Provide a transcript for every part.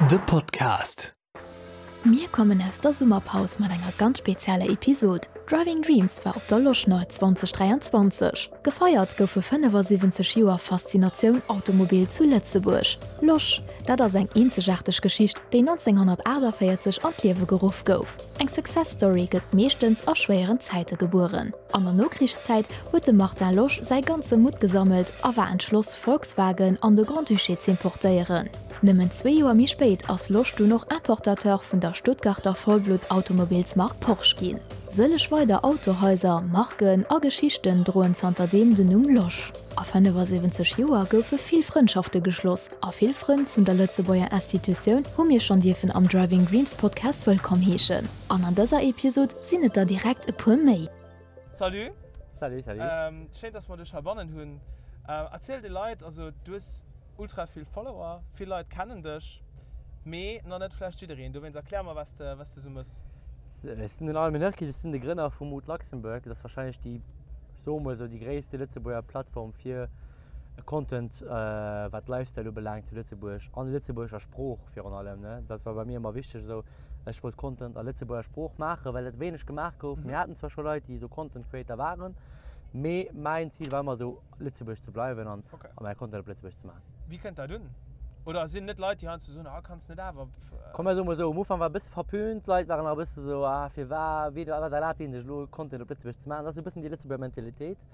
The Podcast. Mir kommen aus der Summerpaus mat enger ganz spezieller Episod. Driving Dreams war op der Loschner 2023. Gefeiert goufe 75 Joer Faszinatioun Automobil zu Lëtzebuerg. Losch, dat ass eng eenzegaarteg Geschicht, déi 1948 an d'Liewe geruff gouf. Eng Success Story gëtt meeschtens a schwéieren Zäite gebueren. An der Nokrichszäit huet de Martin Losch säi ganze Mutt gesammelt a war entschloss, Volkswagen an de Grand-Duché z'importéieren. Nëmmen zwee Joer méi spéit ass Losch dunn och Importateur vun der Stuttgarter Vollblutt-Automobilsmark Porsche ginn. Sëlleg weider Autohaiser, Marken a Geschichten droen zanterdeem den Numm Losch. A 75 Joer goufe vill Frëndschafte geschloss a vill Frënn vun der Lëtzebuerger Institutioun hu mir schonn dierfen am Driving Dreams Podcast wëllkomm heeschen. An an dëser Episod sinn et der direkt e puer méi. Salut. Salut, salut. Schéin dass mer dech heibannen hunn. Erziel de Leit, also du hues ultra vill Follower, vill Leit kennen dech, mee nach net vläicht jiddereen. Dowéinst erklär mer wat s de wat s de sou mëss. Ech sinn den Armin Nurkic, ech sinn de Grënner vu Mood Luxembourg. Dat ass warscheinlech déi, ech soe mol esou, déi gréisste Lëtzebuerger Plattform fir Content wat Lifestyle ubelaangt zu Lëtzebuerg, an lëtzebuergescher Sprooch virun allem. Dat war bei mir ëmmer wichteg esou. Ech wollt Content a lëtzebuerger Sprooch maachen, well dat wéineg gemaach gouf. Mir haten zwar scho Leit, déi esou Content Creator waren, mee mäin Zil war ëmmer esou Lëtzebuerg ze bleiwen an mäi Content op Lëtzebuerg ze maachen. Wéi kënnt dat un? Oder sinn net Leit, déi heiansdo soen, ah kanns net awer op. Komm mer soe mol esou, um Ufank war e bësse verpönt, d'Leit waren nach e bësse esou, ah firwat, wéi, wat erlaabt dee sech elo Content op Lëtzebuerg ze maachen. Dat ass esou e bëssen déi Lëtzebuerger Mentalitéit.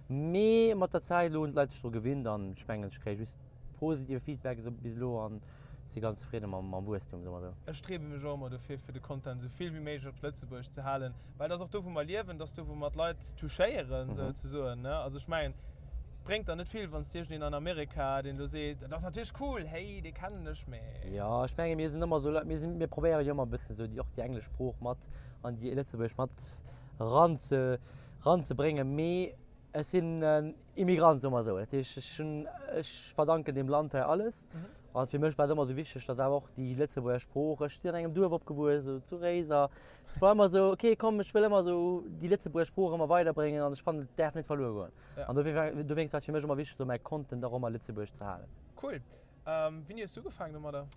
Mee mat der Zäit elo hunn d'Leit sech dru gewinnt an ech mengen ech kréie just positive Feedback esou bis elo an si ganz zefridde mam Wuesstum, soe mer esou. Ech striewe mech och ëmmer dofir, fir de Content esou vill wéi méiglech op Lëtzebuergesch ze halen, well dat ass och do, wou mer liewen, dat ass do, wou mer d'Leit touchéieren, souzesoen, ne? Also ech mengen, et bréngt der net vill, wann s de iergendeen an Amerika, deen elo seet, dat ass natierlech cool, hey, dee kennen ech, mee. Jo, ech menge mir sinn ëmmer esou Leit, mir sinn, mir probéiere jo ëmmer e bëssen esou déi, och déi englesch Sprooch mat an déi lëtzebuergesch mat eranze, eranzebréngen, mee ech sinn en Immigrant, soe mer esou. Dat heescht, ech hunn, ech verdanken deem Land hei alles. An fir mech war et ëmmer esou wichteg, datt awer och déi Lëtzebuerger Sprooch, ech sinn an engem Duerf opgewuess, esou zu Réiser, et war ëmmer esou, okay, komm, ech wëll ëmmer esou déi Lëtzebuerger Sprooch ëmmer weiderbréngen an ech fannen, et däerf net verluer goen. An dofir war, dowéinst war et fir mech ëmmer wichteg, esou mäi Content och ëmmer lëtzebuergesch ze halen. Cool. Wéini hues du ugefaangen domadder?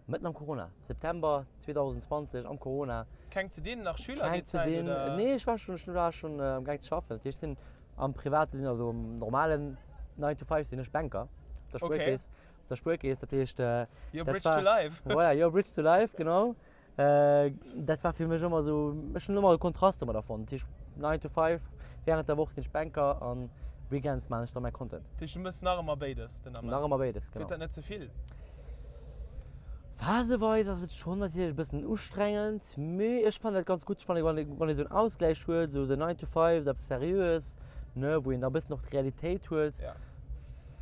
Mëtten am Corona, September 2020 am Corona. Keng ze dinn, nach Schüler déi Zäit oder? Nee, ech war schon, ech war schon am gaang ze schaffen. Dat heescht, ech sinn am private Sinn, also am normalen 9 to 5 sinn ech Banker op der Spuerkeess. Op der Spuerkeess, dat heescht, Your bridge to life. Voilà, your bridge to life, genau. Dat war fir mech ëmmer esou, ech hunn ëmmer e Kontrast domadder fonnt. Dat heescht 9 to 5, wärend der Woch sinn ech Banker an Weekends maachen ech da mäi Content. Dat heescht du méchs nach ëmmer béides den Ament? Nach ëmmer béides, genau. Gëtt dat net ze vill? Phaseweis ass et schonn natierlech e bëssen ustrengend, mee ech fannen dat ganz gutt. Ech fannen, wann ee wann ee esou en Ausgläich huet, esou den 9 to 5, esou eppes Seriöes, ne, wou een da e bëssen och d'Realitéit huet.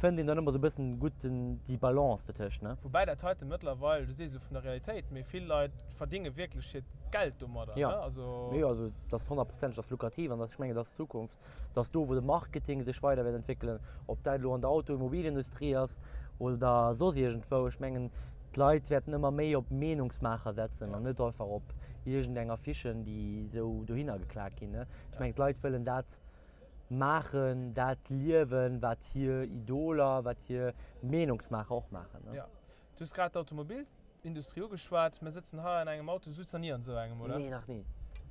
Fënnt een dann ëmmer sou e bëssen gutt den, déi Balance dotëscht, ne? Woubäi dat heite mëttlerweil, du sees elo vun der Realitéit, mee vill Leit verdinge wierklech hiert Geld domadder, ne? Also. Jo, also dat ass honnertprozenteg, dat ass lukrativ an dat, ech mengen, dat ass d'Zukunft. Dat ass do, wou de Marketing sech weider wäert entwéckelen, ob dat elo an der Automobilindustrie ass oder soss iergendwou. Ech mengen, d'Leit wäerten ëmmer méi op Meenungsmaacher setzen an net einfach op iergendeng Affichen, déi esou dohinner geklaakt ginn, ne? Ech mengen, d'Leit wëllen dat maachen, dat liewen, wat hir Idoler, wat hir Meenungsmaacher och maachen. Jo. Du hues grad d'Automobilindustrie ugeschwat. Mir sëtzen hei an engem Auto. Du sutz nach ni an esou engem, oder? Nee, nach ni.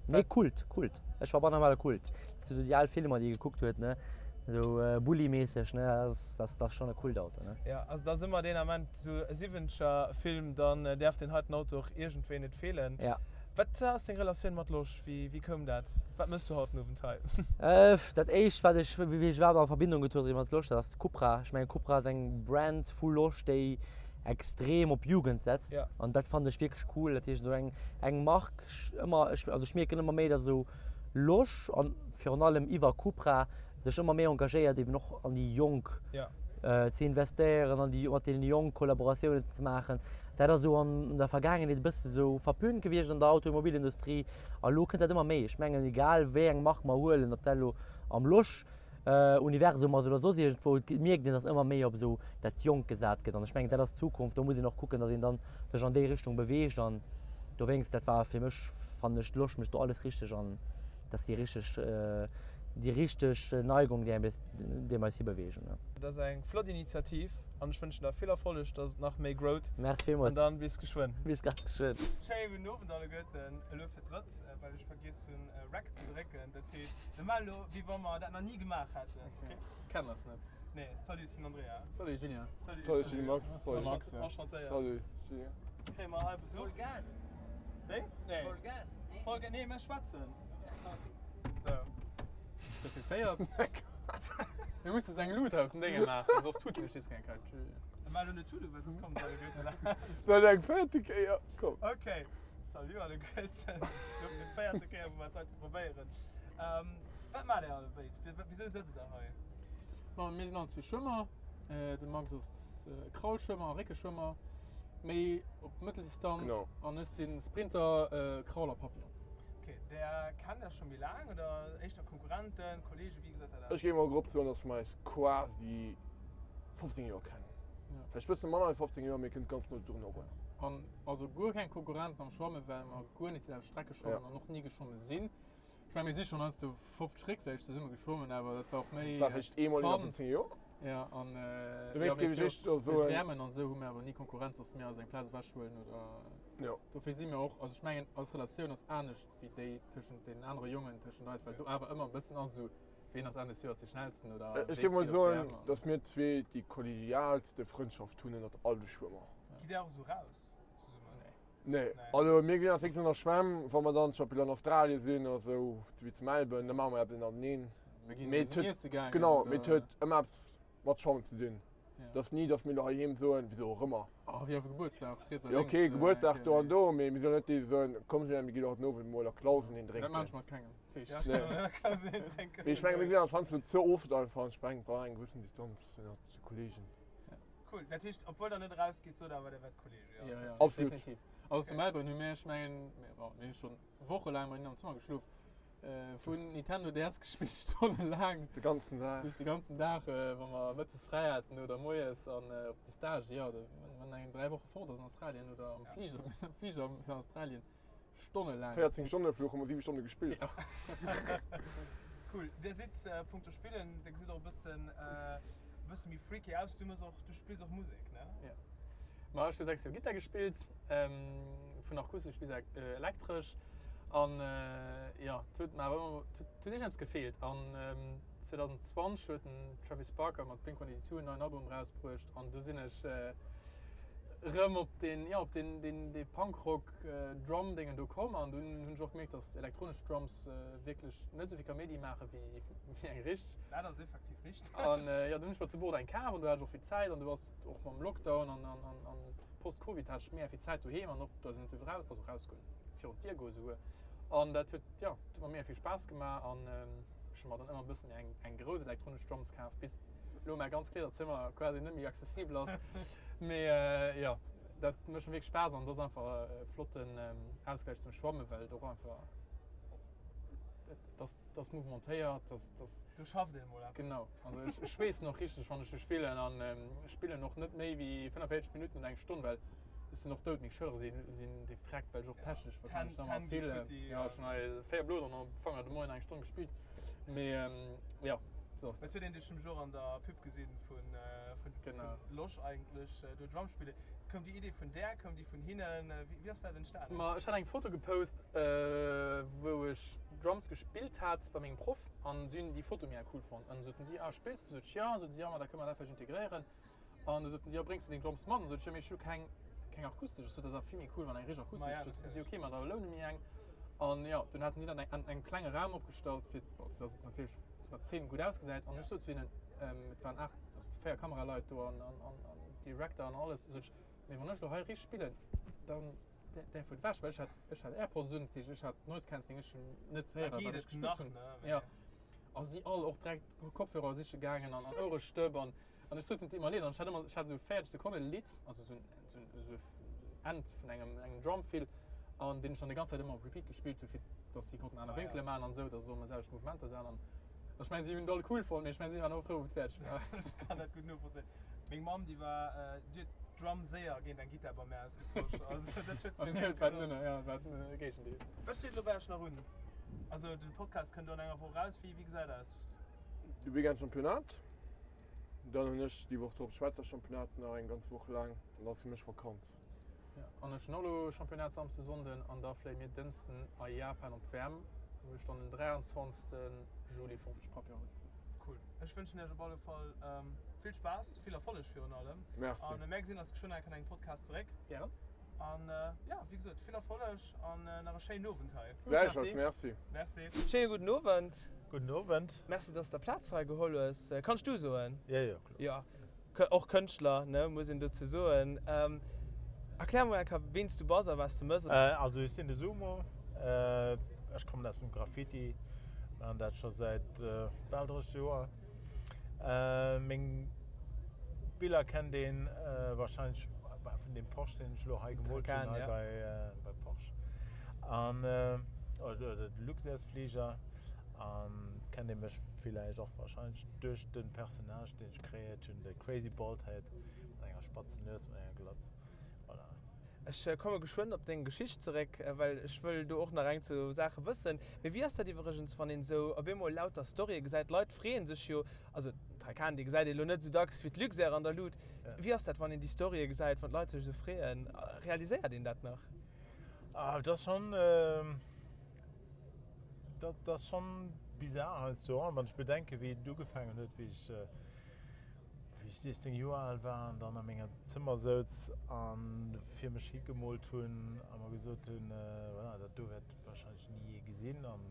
Mee Kult, Kult. Ech war bannamale Kult. Dat sinn esou déi al Filmer, déi ee gekuckt huet, ne? Esou Bulli-mässeg, ne? Dat ass, dat ass schonn e Kultauto, ne? Jo, also dat ass ëmmer deen Ament, esou e Siwwenzeger-Film, dann däerf deen heiten Auto och iergendwéi net feelen. Ja. Wat ass deng Relatioun mat Losch? Wéi koum dat? Wat mëss du haut den Owend hei? Dat éischt wat ech, wéi ech iwwerhaapt a Verbindung getruede sinn mat Losch, dat ass Cupra. Ech mengen Cupra ass eng Brand vu Losch, déi extrem op Jugend setzt. An dat fannen ech wierklech cool. Dat heescht esou eng eng Mark, ëmmer, ech, also ech mierken ëmmer méi, datt esou Losch an virun allem iwwer Cupra sech ëmmer méi engagéiert eben och an déi Jonk ze investéieren, an déi mat deene Jonk Kollaboratiounen ze maachen. Dat ass esou an der Vergaangenheet e bësse sou verpönt gewiescht an der Automobilindustrie a lo kënnt dat ëmmer méi. Ech mengen egal wéi eng Mark mer huelen, ob dat elo am Losch Universum ass oder soss iergendwou, et mierkt een, datt ëmmer méi op esou dat Jonk gesat gëtt an ech mengen dat ass d'Zukunft. Do muss een och kucken, datt een dann sech an déi Richtung beweegt an dowéinst, dat war fir mech, fannen ech, d'Losch mécht do alles richteg an dass si richteg. Déi richteg Neigung, déi déi mer eis hibeweegen. Dat ass eng flott Initiativ an ech wënschen der vill Erfolleg, dass et nach méi growt. Merci villmools. An dann bis geschwënn. Bis ganz geschwënn. Schéine gudden Owend alleguerten. Elo fir d'drëtt, well ech vergiess hunn Rec ze drécken. Dat heescht, mir maachen elo wéi wa mer dat nach ni gemaach hätten. Ok? Kennen ass net. Nee. Salut, ech sinn Andrea. Salut Julien. Salut, Salut, ech sinn de Max. Salut Max. Enchantéiert. Salut Julien. Kréie mer hei Besuch? Voll Gas. Wéi? Nee. Voll Gas? Nee. Voll Gas, nee, mir schwätzen. So. Ist das geféiert? Mir musse eng Lut op den Dénge maachen, soss tut mech keng Kalt. Mä lo net tute, well soss kommen alleguerten laanscht. Dat eng véierte Kéier, komm. Ok, salut alleguerten. Lo fir d'véierte Kéier, wou mer dat heite probéieren. Wat maacht Dir allebéid? Wisou sëtzt Der hei? Ma mir sinn allenzwee Schwëmmer. De Max ass Kraulschwëmmer a Réckeschwëmmer, méi op Mëtteldistanz. An ech si Sprinter, Kraul a Papillon. Ok, der kennt Iech scho méi laang oder éischter Konkurrenten, Kollegen, wéi gesäit dat aus? Ech géif mol grob soen, dass mer eis quasi 15 Joer kennen. Vläicht bësse manner wéi 15 Joer, mee kënnt ganz no drun erun. An also guer keng Konkurrenten am Schwammen, well mer guer net déi selwecht Strecke schwammen an och ni geschwommen sinn. Ech mengen, mir si schonn heiansdo 50 Réck vläicht zesumme geschwommen, awer dat war och méi War vläicht eemol iwwer 15 Joer. Ja, an Dowéinst géif ech éischter soen. WMen an esou hu mir awer ni Konkurrenz, dass mir eis eng Plaz ewechhuelen oder. Jo. Dofir si mir och, also ech mengen, eis Relatioun ass anescht wéi déi tëschent deenen anere Jongen, tëschent eis, well do awer ëmmer e bëssen ass esou, ween ass Enn des Joers dee Schnellsten oder Ech wéi géif mol geet op soen, d'WM an. dass mir zwee déi kollegialste Frëndschaft hunn ënnert all de Schwëmmer. Gitt Dir och esou raus zesummen? Nee. Nee, also mir ginn als nächstes an der Schwämm, wa mer dann zum Beispill an Australien sinn oder sou, wéi zu Melbourne, da maache mer eppes ënnerteneen. Mir ginn Mee et zesumme huet, iesse gaangen genau, mee et oder. huet ëmmer eppes mat Schwammen ze dinn. Ja. Et ass ni, dass mir elo heiheem soen, wisou och ëmmer. Oh, wéi op e Gebuertsdag, riets a Jo, lénks. okay, Gebuertsdag do an do, mee mir sinn net déi, déi soen, komm Julien, mir ginn elo haut den Owend mol a Clausen een Dat maan drénken. ech mat kengem. Ja, ech kann och net Clausen een drénken. Mee ech menge mir sinn eis heiansdo ze oft einfach an ech mengen, et brauch eng gewëssen Distanz ënnert de Kollegen. Cool, dat heescht, obwuel der net erausgeet, sot awer, der wäert Kollege, jo? Ja, ja, Absolut. definitiv. Also zu Melbourne hu mir, ech mengen, mir, bon, mir hu schonn wochelaang bei hinnen am Zëmmer geschlof, vun Nintendo DS gespillt, stonnelaang. De ganzen Dag. Bis de ganzen Dag, wa mer mëttes fräi haten oder moies an op de Stage, jo, wann eng 3 Woche fort ass an Australien oder am Fliger, am Fliger fir Australien. Stonnelaang. 14 Stonne Fluch hu mer 7 Stonne gespillt. Ja. Cool. Dir sidd punkto Spillen, dir gesitt och e bëssen e bësse méi freaky aus. Du mëss och, du spills och Musek, ne? Ja. Ma ech hu 6 Joer Gittar gespillt, vun akustesch bis elektresch. An jo, et huet mer awer ëmmer, et huet iergendeppes gefeelt. An 2020 huet den Travis Barker mat Blink 182 en neien Album erausbruecht an du sinn ech rëm op den, jo, op den, den, dee Punkrock Drum Déngen do komm an dunn hunn ech och gemierkt, dass elektronesch Drums wierklech net esou vill Kaméidi maache wéi, wéi eng richteg. Dat ass effektiv richteg. An jo, dunn hunn ech mer zu Bordeaux eng kaf an do hat ech och vill Zäit an du ass och mam Lockdown an, an, an, an Post-Covid hat ech mega vill Zäit doheem an och da sinn et eraus, also erausgoen, virun d'Dier goe souguer an dat huet, jo, huet mer mega vill Spaass gemaach an ech hu mer dann ëmmer e bëssen méi eng, eng grouss elektronesch Drums kaf, bis elo mäi ganz Kleederzëmmer quasi net méi accessibel ass. Mee jo, dat mécht mer wierklech Spaass an et ass einfach e flotten Ausgläich zum Schwammen, well et och einfach, et ass, et ass mouvementéiert, et ass, et ass. Do schafft een emol eppes. Genau, also ech, ech schweessen och richteg, wann ech do spillen an ech spillen och net méi wéi 45 Minutten oder eng Stonn, well ech sinn och dout, meng Schëllere sinn, sinn defrekt, well ech och technesch wahrscheinlech nach ëmmer vill, jo, ech hunn hei 4 Bloderen am Fanger de Moien eng Stonn gespillt, mee jo, sou ass Dat dat. huet een dech nämlech och an der Pub gesinn vun, vun, Genau. vun Losch eigentlech, do Drum spillen. Koum déi Idee vun där, koum déi vun hinnen, wéi, wéi ass dat entstanen? Ma ech hat eng Foto gepost, wou ech Drums gespillt hat bei mengem Proff an si hunn déi Foto mega cool fonnt an soten si, ah spills de? Sot ech, jo. An soten si, jo ma da kënne mer dat vläicht integréieren. An du soten si, jo bréngs de deng Drums mat? An sot ech, jo mee ech hu keng, keng akustesch. Ech sot, dat ass awer vill méi cool wann eng richteg akustesch. Ma ja, Du soten si, natierlech. ok ma da loune mir eng. An jo, dunn haten si dat an engem klenge Raum opgestallt fir, bon, fir dass et natierlech vun der Zeen gutt ausgesäit. An ech sot zu hinnen, et waren 8, also 4 Kameraleit do an, an, an, an Director an alles, sot ech, mee wann ech elo hei richteg spillen, dann däerf et ewech, well ech hat, ech hat Airpods un, dat heescht ech hat Noise Cancelling, ech hunn net Da héieren geet wat ech et gespillt nach, hunn. ne? Jo. Mee. A si all och direkt Kopfhörer siche gaangen an, an Ouerestëpp an An ech sot et ëmmer leed an ech hat ëmmer, ech hat esou 40 Sekonne Lidd, also esou en, esou en End vun engem, engem Drum Fill an deen ech dann déi ganz Zäit ëmmer op Repeat gespillt hu fir dass si konnten aner Wénkele maachen an esou, dass et och ëmmer selwecht Mouvementer sinn an ech mengen si hunn et all cool fonnt, mee ech mengen si waren och frou wou et fäerdeg war. Ech kann dat gutt novollzéien. Meng Mamm déi war, déi huet d'Drum séier géint eng Gittar bei mär ausgetosch, also dat huet Bei si mir war et, ja, war et de Géigendeel. Wat steet elo bei iech nach un? Also den Podcast kënnt elo an enger Woch eraus. Wéi gesäit aus? De Weekend Championnat, dann hunn ech déi Woch drop Schwäizer Championnat nach eng ganz Woch laang an dann ass fir mech Vakanz. Ja, an ech hunn och elo Championnat Samsden, Sonnden an da fléie mir Dënschden a Japan op d'WM, wou ech dann den 23 Juli 50 Papier hunn. Cool. Ech wënschen iech op alle Fall vill Spaass, vill Erfolleg virun allem. Merci. An mär gesinn eis geschwënn nach an engem Podcast zeréck. Gären. An jo, wéi gesot, vill Erfolleg an nach e schéinen Owend hei. Gläichfalls, merci. Merci. Schéine gudden Owend. Gudden Owend. Merci, dass s de Plaz hei geholl hues. Kann ech du soen? Jo, jo, kloer. Jo, och Kënschtler, ne, muss een dozou soen. Erklär mol eng Kéier, ween s du bass a wat s de mëss. Also ech sinn de Sumo, ech kommen aus dem Graffiti, maachen dat scho säit bal 30 Joer. Meng Biller kennt een wahrscheinlech vun deem Porsche, deen ech elo hei gemoolt hunn, hei bei Porsche. An oder de Luxairsfliger. An kennt ee mech villäicht och wahrscheinlech duerch de Personnage, deen ech kreéiert hunn, de Crazy Baldhead mat enger spatzen Nues, mat enger Glatz. Voilà. Ech komme geschwënn op deng Geschicht zeréck, well ech wëll do och nach eng zwou Saache wëssen. Mee wéi ass dat iwwregens, wann een esou op eemol lauter Storye gesäit? D'Leit freeë sech jo, also den Taycan, dee gesäit ee lo net esou dacks wéi d'Luxair an der Lut. Wéi ass dat, wann een déi Storye gesäit, wann d'Leit sech esou freeën? Realiséiert een dat nach? Ah, dat ass schonn, dat ass schonn bizar heiansdo, wann ech bedenken, wéi et ugefaangen huet, wéi ech, wéi ech 16 Joer al war an dann a menger Zëmmer souz a fir mech hi gemoolt hunn a mer gesot hunn, voilà, dat do wäert warscheinlech ni ee gesinn an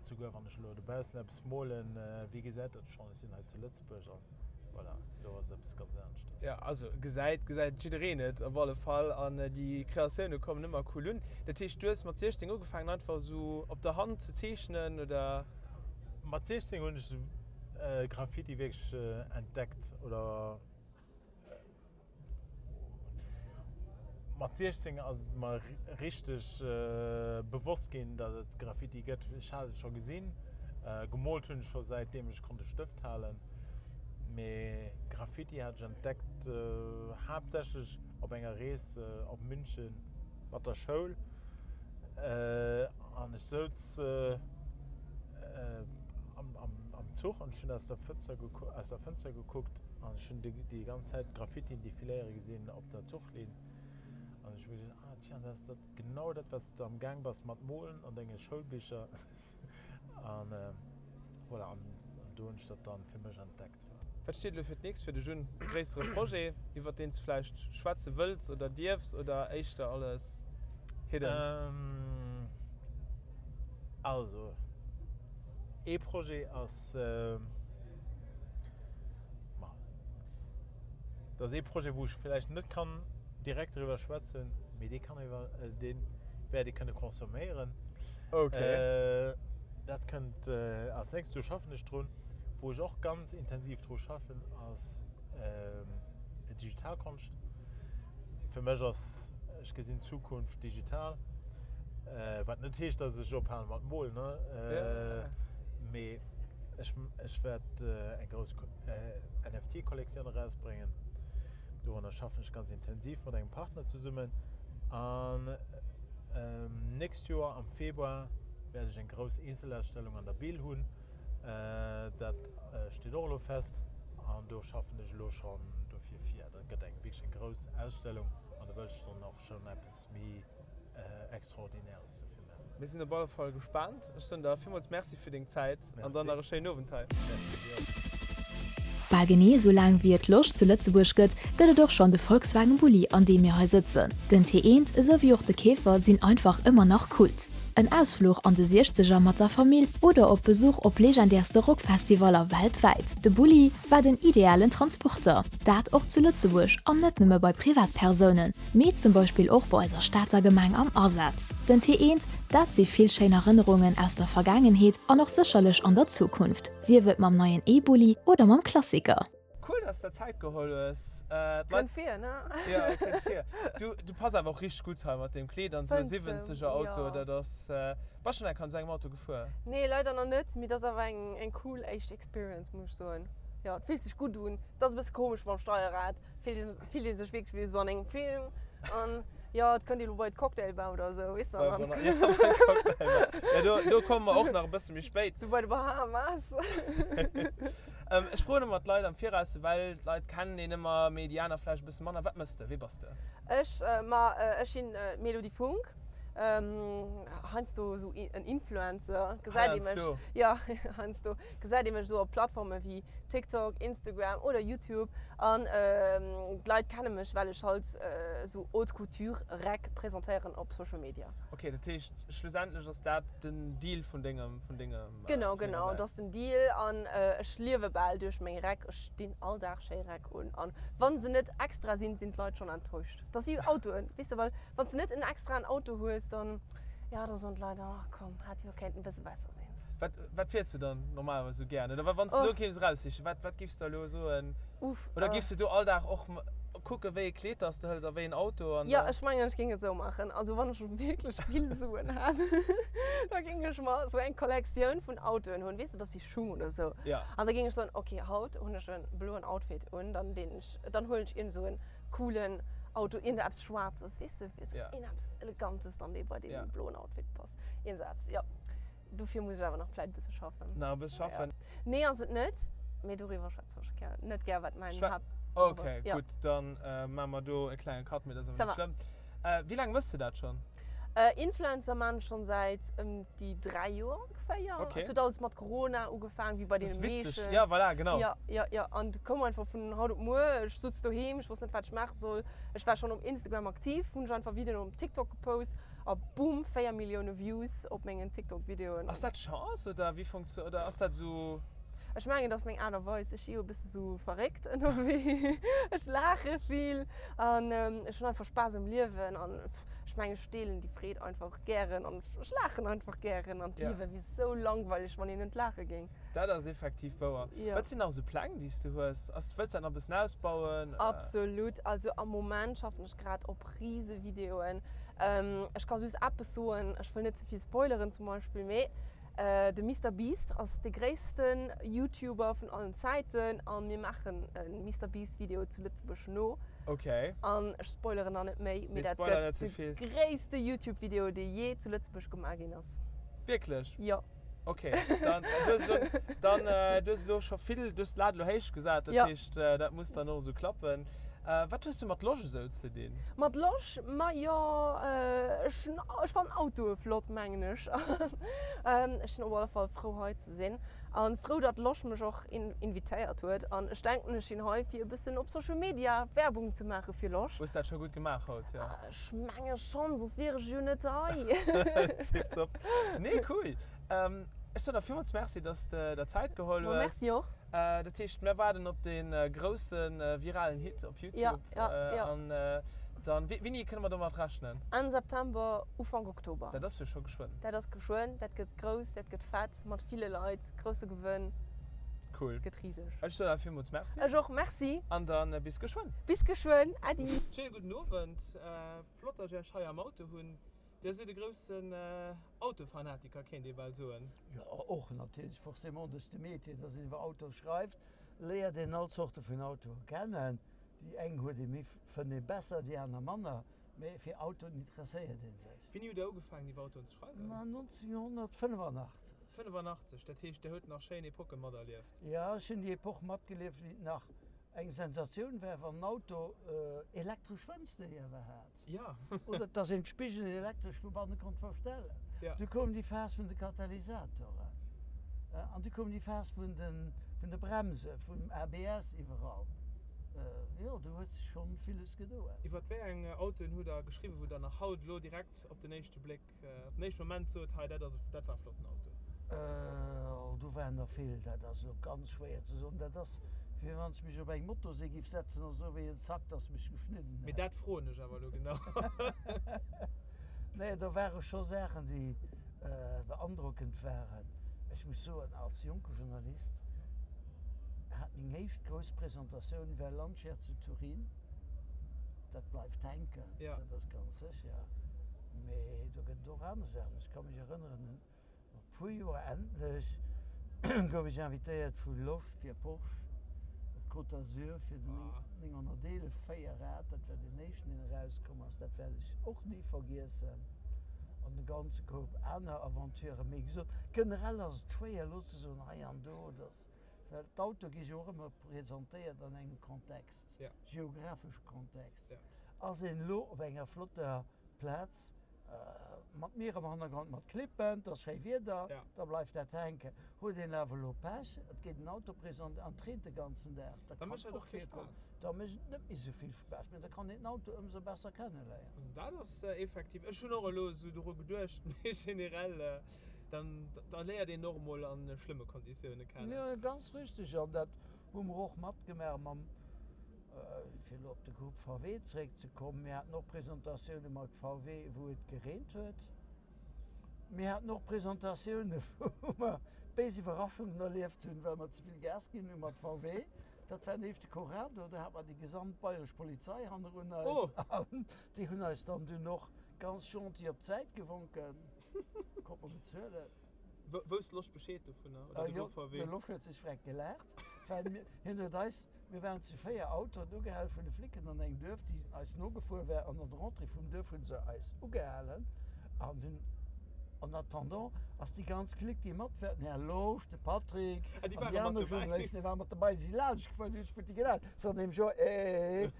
souguer wann ech elo dobaussen eppes molen, wie gesäit dat schonn, ech sinn hei zu Lëtzebuerg an voilà, elo ass eppes ganz aneschters. Jo, also gesäit, gesäit jiddereen et op alle Fall an déi Kreatioune kommen ëmmer cool un. Dat heescht, du hues mat 16 ugefaangen einfach esou op der Hand ze zeechnen oder? Mat 16 hunn ech Graffiti wierklech entdeckt oder mat 16 ass et mer richteg bewosst ginn, datt et Graffiti gëtt. Ech hat et scho gesinn, gemoolt hunn ech scho säitdeem ech konnt e Stëft halen, mee Graffiti hat ech entdeckt haaptsächlech op enger Rees op München mat der Schoul. An ech souz am Zuch an ech hunn aus der Fënster aus der Fënster gekuckt an ech hunn déi ganz Zäit Graffitien defiléiere gesinn op der Zuchlinn. An ech hu mir geduecht, ah tiens, dat ass dat genau dat, wat s de am Gaang bass mat molen an denge Schoulbicher. An voilà, an do hunn ech dat dann fir mech entdeckt. Wat steet elo fir d'nächst fir dech un? E gréissere Projet, iwwert deen s de vläicht schwätze wëlls oder dierfs oder éischter alles hidden? Also, ee Projet ass, ma, dat ass ee Projet, wou ech vläicht net kann direkt driwwer schwätzen, mee dee kann iwwer, dee wäert ee kënne consomméieren. Okay. Dat kënnt als nächst, do schaffen ech drun. Wou ech och ganz intensiv dru schaffen, ass Digitalkonscht. Fir mech ass, ech gesinn d'Zukunft digital, wat net heescht, dass ech ophale mat molen, ne? Mee ech, ech wäert eng grouss NFT-Kollektioun erausbréngen. Dorunner schaffen ech ganz intensiv mat engem Partner zesummen. An nächst Joer am Februar wäert ech eng grouss Eenzelausstellung an der Bill hunn. Dat steet och elo fest an do schaffen ech elo schonn dofir vir. Dat gëtt eng wierklech eng grouss Ausstellung an do wëll ech dann och schonn eppes méi Extraordinäres dofir maachen. Mir sinn op alle Fall gespaant. Ech soen der villmools Merci fir deng Zäit an dann nach e schéinen Owend hei. Merci dir och. Bal genee esou laang wéi et Losch zu Lëtzebuerg gëtt, gëtt et och schonn de Volkswagen Bulli an deem mir hei sëtzen. Den T1 esou wéi och de Käfer sinn einfach ëmmer nach Kult. En Ausfluch an de Siechzeger mat der Famill oder op Besuch op legendärste Rockfestivaller weltwäit, de Bulli war den idealen Transporter. Dat och zu Lëtzebuerg an net nëmme bei Privatpersounen, mee zum Beispill och bei eiser Stater Gemeng am Asaz. Den T1, dat si vill schéin Erënnerungen aus der Vergaangenheet an och sécherlech an der Zukunft, sief et mam neien E-Bulli oder mam Klassiker. Cool dass de der Zäit geholl hues. Kënnt vir, ne? Jo, kënnt vir. Du, du pass awer och richteg gutt hei mat deem Kleed an esou e 70er Auto, dat ass. Bass schonn eng Kéier an esou engem Auto gefuer? Nee, leider nach net, mee et ass awer eng, eng cool éischt Experience, muss ech soen. Jo, et fillt sech gutt un. Et ass e bësse komesch mam Steierrad, fillt ee, fillt ee sech wierklech wéi esou an engem Film. An. Jo, et kënnt ee lo bei d'Cocktailbar oder esou, weess de. Bei Bona, ja, bei d'Cocktailbar. Ja, do, do komme mer och nach e bësse méi spéit. Sou bei de Bahamas. Ech froen ëmmer d'Leit am Viraus, well d'Leit kennen een ëmmer, mee déi aner vläicht e bësse manner. Wat mëss de? Wie bass de? Ech, ma ech sinn d'Mélodie Funck. Heiansdo esou en Influencer, gesäit ee mech. Heiansdo? Jo, heiansdo gesäit ee mech esou op Plattforme wéi TikTok, Instagram oder YouTube. An d'Leit kenne mech, well ech halt esou Haute Couture Räck presentéieren op Social Media. Ok, dat heescht schlussendlech ass dat den Deal vun dengem, vun dengem. Genau, genau, dat ass den Deal an ech liewe bal duerch meng Räck. Ech dinn all Dag schéi Räck un an wa se net extra sinn, sinn d'Leit schonn enttäuscht. Dat ass wéi Autoen, weess de, well wann s de net en extraen Auto hues, dann, jo, da soen d'Leit, ach komm, hätt jo kéinten e bësse besser sinn. Wat, wat fiers de dann normalerweis esou gären? Oder wann s de elo kéints eraussichen, wat, wat giffs de elo soen? Uff. Oder giffs de do all Dag och kucken, wéi e Kleed dass de hëls a wéi en Auto an Jo, da. ech mengen, ech géing et esou maachen. Also wann ech wierklech vill Suen hätt, da géing ech mer esou eng Kollektioun vun Autoen hunn, weess de, dat ass wéi Schung oder esou. Ja. An da géing ech soen, ok, haut hunn ech e bloen Outfit un, dann deen ech, dann huelen ech iergend esou en coolen Auto, iergend eppes Schwaarzes, weess de, esou Ja. iergend eppes Elegantes dann, dee bei deem Ja. bloen Outfit passt. Iergend esou eppes, jo. Dofir muss ech awer nach vläit e bësse schaffen. Nach e bësse schaffen? Ja. Nee, ass et net. Mee doriwwer schwätzen ech gär, net gär, wat mäin Schwä Haaptberuff ass. Okay, Ja. gutt, dann maache mer do e klenge Cut, mee dat ass Ça awer net va. schlëmm. Wéi laang méchs de dat schonn? Influencer maan ech schonn säit ëm déi 3 Joer ongeféier. Okay. Et huet alles mat Corona ugefaang, wéi bei Dat ass deene witzeg. meeschten. Ja, voilà, genau. Ja, ja, ja. An et koum einfach vun haut op muer. Ech sutz doheem, ech wosst net, wat ech maache soll. Ech war schonn op Instagram aktiv, hunn ech einfach Videoen op TikTok gepost. A boom, 4 Millioune Views op mengen TikTok Videoen. Ass dat Chance oder wéi funktio oder ass dat esou? Ech mengen dat ass meng Aart a Weis. Ech si jo e bësse sou verréckt ënnerwee. Ech laache vill an ech hunn einfach Spaass um Liewen an ech mengen ech deelen déi Freed einfach gären an ech laachen einfach gären an d'Liewe wier sou langweileg wann een net laache géing. Dat ass effektiv wouer. Wat sinn nach esou Pläng déi s du hues? Ass, wëlls dat nach e bëssen ausbauen? Absolut. Also am Moment schaffen ech grad op rise Videoen. Ech ka just eppes soen, ech wëll net ze vill spoileren zum Beispill, mee de Mister Beast ass de gréissten YouTuber vun allen Zäiten a mir maachen e Mister Beast Video zu Lëtzebuerg no. Okay. An ech spoileren nach net méi, mee dat gëtt de gréisste YouTube Video dee jee zu Lëtzebuerg gemaach ginn ass. Wierklech? Jo. Ok, dann du hues elo, dann du hues elo scho vill, du hues d'Lat elo héich gesat, dat heescht dat muss dann och esou klappen. Wat hues du mat Losch esou ze dinn? Mat Losch? Majo, ech hunn, ech fannen Autoe flott, mengen ech. Ech sinn op alle Fall frou hei ze sinn an frou datt Losch mech och invitéiert huet. An ech denken ech sinn hei fir e bëssen op Social Media Werbung ze maache fir Losch. Hues dat scho gutt gemaach haut, jo? Ech menge schonn, soss wier ech jo net hei. Tiptop. Nee, cool. Ech soen der villmools Merci, dass de der Zäit geholl hues. Ma merci och. Dat heescht, mir waarden op dee grousse viralen Hit op YouTube. Ja, ja, ja. An dann, wéini kënne mer domat rechnen? Enn September, Ufank Oktober. Dat ass jo scho geschwënn. Dat ass geschwënn, dat gëtt grouss, dat gëtt fett, mat ville Leit, grousse Gewënn. Cool. Gëtt riseg. Ech soen der villmools Merci. Ech och, Merci. An dann bis geschwënn. Bis geschwënn, Äddi. Schéine gudden Owend. Flott, dass ech Iech hei am Auto hunn. Dir sidd e groussen Autofanatiker, kéint ee bal soen. Jo, och natierlech, forcément duerch de Métier, dass een iwwer Autoe schreift, léiert een all Zorte vun Autoe kennen. Déi eng huet ee méi, fënnt ee besser, déi aner manner, mee fir Autoen interesséiert ee sech. Wéini hutt Der ugefaangen iwwer Autoen ze schreiwen? Ma 1985. 85, dat heescht Der hutt nach schéin Epoche materlieft? Jo, ech hunn déi Epoch matgelieft, wéi et nach eng Sensatioun war, wann en Auto elektresch Fënster iewer hat. Ja. Oder dass een d'Spigelen elektresch vu banne konnt verstellen. Ja. Du koum déi Phas vun de Katalysatoren. An du koum déi Phas vun de, vun de Bremse, vum ABS iwwerall. Jo, do huet sech schonn villes gedoen. Iwwer wéi eng Autoen hutt Der geschriwwen, wou Der nach haut elo direkt op den éischte Bléck, op den éischte Moment sot, hei dat ass, dat war e flotten Auto? Oh, do waren der vill. Dat ass elo ganz schwéier ze soen. Dat ass, wéi wann ech mech op eng Motosee giff setzen a soe wéi en Zack, dass mech geschnidden Mee hätt. dat froen ech awer elo genau. Nee, do ware scho Saachen, déi beandrockend waren. Ech muss soen, als jonke Journalist hat meng éischt grouss Presentatioun war Lancia zu Turin. Dat bleift hänken, dat ass ganz sécher. Mee do gëtt et och aner Saachen. Ech ka mech erënneren un no puer Joer endlech gouf ech invitéiert vu Losch fir Porsche. Côte d'Azur fir den 911 Véierrad, dat war deen éischten, deen erauskomm ass, dat wäert ech och ni vergiessen. An e ganze Koup aner Aventuren. Mee wéi gesot, generell ass et schwéier elo ze soen, hei an do, dass, well d'Autoe gi jo och ëmmer presentéiert an engem Kontext, geografesche Kontext. Ass een elo op enger flotter Plaz, Mat Mier am Hannergrond, mat Klippen, et ass schéi Wieder, da bleift dat hänken. Huet een awer elo Pech, et gétt en Auto présent an et reent de ganzen Dag, dat kann och virkommen, da mécht et net méi esou vill Spaass, mee da kann een den Auto ëmsou besser kenneléieren. Dat ass effektiv, ech hunn och elo esou doru geduecht, mee generell, dann da léiert een och emol a schlëmme Konditioune kennen. Jo, ganz richteg, an dat hu mer och matgemaach mam. Fir elo op de Grupp VW zeréckzekommen, Mir haten och Presentatioune mat VW, wou et gereent huet. Mir haten och Presentatioune, wou mer béis Iwwerraschungen erlieft hunn, well mer ze vill Gas ginn hu mat VW. Dat war den éischte Corrado, do hat mer déi gesamt bayresch Polizei hannerun eis. An déi hunn eis dann dunn och ganz gentil op d'Säit gewonken. Konnt mer bezuelen. Wousst Losch Bescheed dovunner oder de Grupp VW? Jo, de Losch huet sech freck gelaacht, well mir, hien huet eis, mir waren zu 4 Autoen ugehal vun de Flicken an engem Duerf, déi eis nogefuer war, an an der Entrée vum Duerf hu se eis ugehalen an dunn, en attendant, ass déi ganz Clique, déi mat war, den Här Losch, de Patrick Ah, déi an ware déi mat aner dobäi. Journalisten, déi ware mat dobäi, si si laanscht gefuer, hunn sech futti gelaacht, se soten nämlech jo, eh.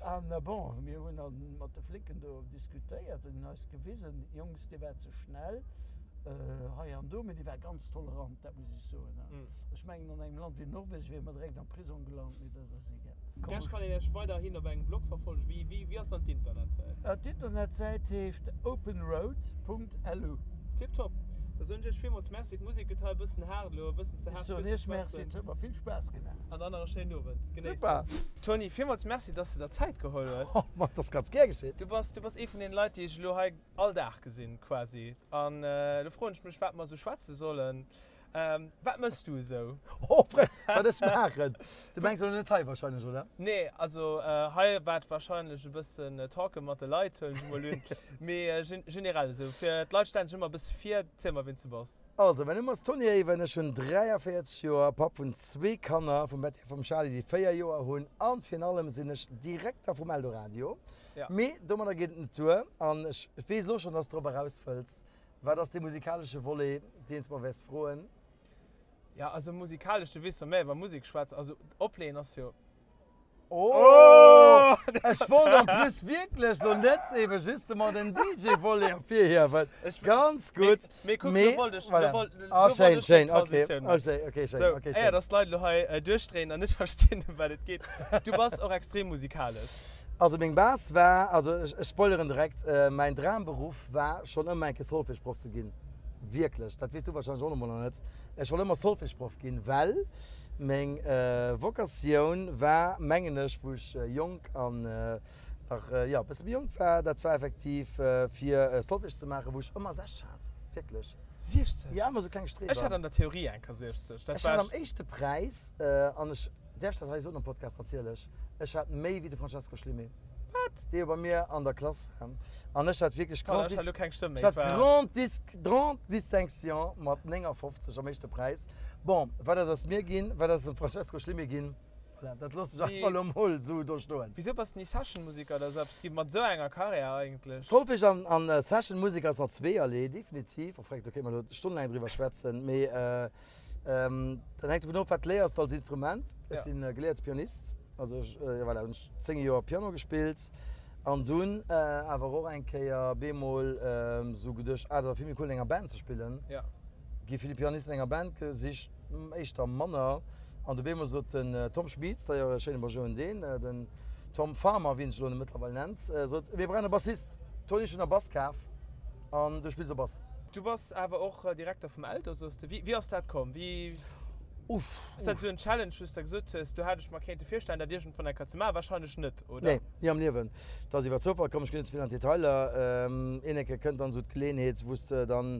An bon, mir hunn dann mat de Flicken do diskutéiert an hunn eis gewisen, Jungs, dir waart ze schnell hei an do, mee déi war ganz tolerant, dat muss ech soen. Ech mengen, an engem Land wéi Norwegen wiere mer direkt am Prisong gelant, mee dat ass egal. Iech kann een Iech weiderhin op engem Blog verfollegen. Wéi, wéi ass dann d'Internetsäit? D'Internetsäit heescht openroad.lu. Tiptop. Da soen ech Iech villmools Merci. D'Musek gëtt hei e bëssen haart elo, e bëssen ze Ech haart soen fir ze Iech Merci, schwätzen. et huet mer vill Spaass gemaach. An dann nach e schéinen Owend. Genéisst Super! et. Tony, villmools Merci, dass de der Zäit geholl hues. Oh, ma et ass ganz gär geschitt. Du bass, du bass ee vun deene Leit, déi ech elo hei all Dag gesinn, quasi. An elo froen ech mech, wat mer esou schwätze sollen. Wat mëss du esou? Oh, wat ech maachen? Du mengs elo net hei wahrscheinlech, oder? Nee, also hei waart wahrscheinlech e bëssen Talken mat de Leit, huelen ech emol un. Mee generell esou, fir d'Leit stellen sech ëmmer e bësse vir. Ziel mer, wien s du bass. Also, mäin Numm ass Tony Ewen, ech hunn 43 Joer, Papp vun zwee Kanner, vum Betty a vum Charly, déi 4 Joer hunn, an virun allem sinn ech Direkter vum Eldoradio. Mee domadder geet et net duer, an ech weess elo schonn, dass s de drop eraus wëlls. Wat ass dee musikalesche Volet, deen s de mer wäers froen? Jo, also musikalesch, du weess jo, mä iwwer Musek schwätzen, also opleeën ass jo. Oh! Ech wollt en plus wierklech lo net eben justement den DJ-Volet ervirhiewen. Ganz gutt. Mee kuck, lo wollt ech, lo wollt, lo Ah, wollt schéin, ech schéin, déi okay. Transitioun Oh, schéin, okay, schéin, Sou, okay, éier schéin. dass d'Leit elo hei duerchdréinen an net verstinn, ëm wat et geet, du bass och extrem musikalesch. Also meng Base war, also ech, ech spoileren direkt, mäin Dramberuff war schonn ëmmer eng Kéier Solfège-Proff ze ginn. Wierklech, dat weess du wahrscheinlech och nach emol nach net. Ech wollt ëmmer Solfège-Proff ginn, well meng Vocatioun war, mengen ech, wou ech jonk an nach, jo, e bësse méi jonk war, dat war effektiv fir Solfège ze maachen, wou ech ëmmer 60 hat, wierklech. 60? Jo, ëmmer sou kleng Streber. Ech hat an der Theorie eng Kéier 60. Dat Ech hat war am éischte Präis, an ech däerf dat hei soen am Podcast natierlech, ech hat méi wéi de Francesco Schlimé. Wat? Dee jo bei mir an der Klass war. An ech hat wierklech Pardon, Grand ech hat elo keng Stëmm méi. Ech hat Grand Dis, Grande Distinction mat 59 am éischte Präis. Bon, wat ass aus mir ginn, wat ass aus dem Francesco Schlimé ginn, voilà, dat loosse ech einfach elo mol esou do stoen. Wisou bass de ni Session-Musiker oder esou eppes ginn, mat esou enger Karriär eigentlech? Solfège an, an Session-Musek ass nach zweeërlee, definitiv. Enfin, do kéinte mer elo stonnelaang driwwer schwätzen, mee Dat hänkt dovun of, wat léiers de als Instrument. Ech si geléierte Pianist, also ech, jo voilà, hunn ech 10 Joer Piano gespillt an dunn awer och eng Kéier bemol esou geduecht, ah dat ass vill méi cool an enger Band ze spillen. Gi vill Pianisten an enger Band gesicht, éischter manner. An du bemol sot den Tom Schmieds, d'ailleurs e schéine Bonjour un deen, den Tom Farmer, wéi en sech elo mëttlerweil nennt, sot, mir brauchen e Bassist. Tony, ech hunn e Bass kaf. An du spills och Bass. Du bass awer och Direkter vum Eldo, soos de. Wéi ass dat komm? Wéi ass dat esou en Challenge, wou s de gesot hues, do hätt ech mer kéinte virstellen, dat iergendwann eng Kéier ze maachen? Warscheinlech net, oder? Nee, ni am Liewen. Et ass iwwer Zoufall komm. Ech ginn net ze vill an d'Detailer. Een Kéier kënnt dann esou d'Geleeënheet, wou s de dann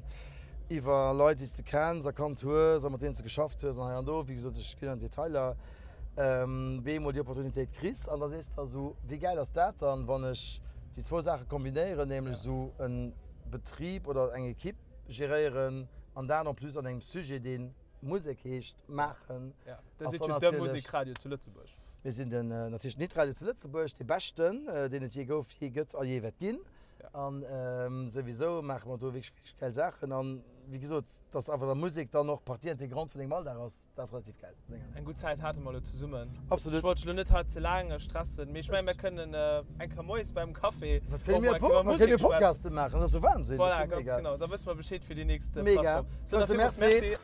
iwwer Leit, déi s de kenns a kannt hues a mat deenen s de geschafft hues an hei an do, wéi gesot, ech ginn an d'Detailer, bemol déi Opportunitéit kriss an da sees de der esou, wéi gäil ass dat dann, wann ech déi zwou Saache kombinéieren, nämlech esou e Betrib oder eng Ekipp geréieren an dat en plus an engem Sujet, dee. Musek heescht, maachen. Ja, Dir sidd jo de Musekradio zu Lëtzebuerg. Mir sinn den natierlech den Hitradio zu Lëtzebuerg, dee beschten, deen et jee gouf, jee gëtt a jee wäert ginn. An souwisou maache mer do wierklech, wierklech gäil Saachen. An wéi gesot, dass awer da Musek dann och Partie intégrante vun dengem Alldag ass, dat ass relativ gäil. Eng gutt Zäit hate mer elo zesummen. Absolut. Ech wollt dech elo net hei ze laang stressen, mee ech mengen, mir kënnen eng Kéier moies beim Café och mol eng Kéier iwwer Musek schwätzen. Mir kënne Podcaste maachen, dat ass jo Wahnsinn. Voilà, ganz genau. Da wësse mer Bescheed fir déi nächst Plattform. Mega. Sou, da villmools Merci.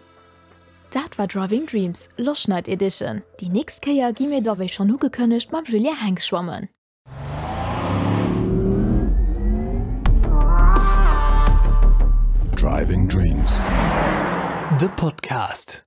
Dat war Driving Dreams, Loschnight Edition. Déi nächst Kéier gi mir da wéi schonn ugekënnegt mam Julien Henx schwammen. Driving Dreams, de Podcast.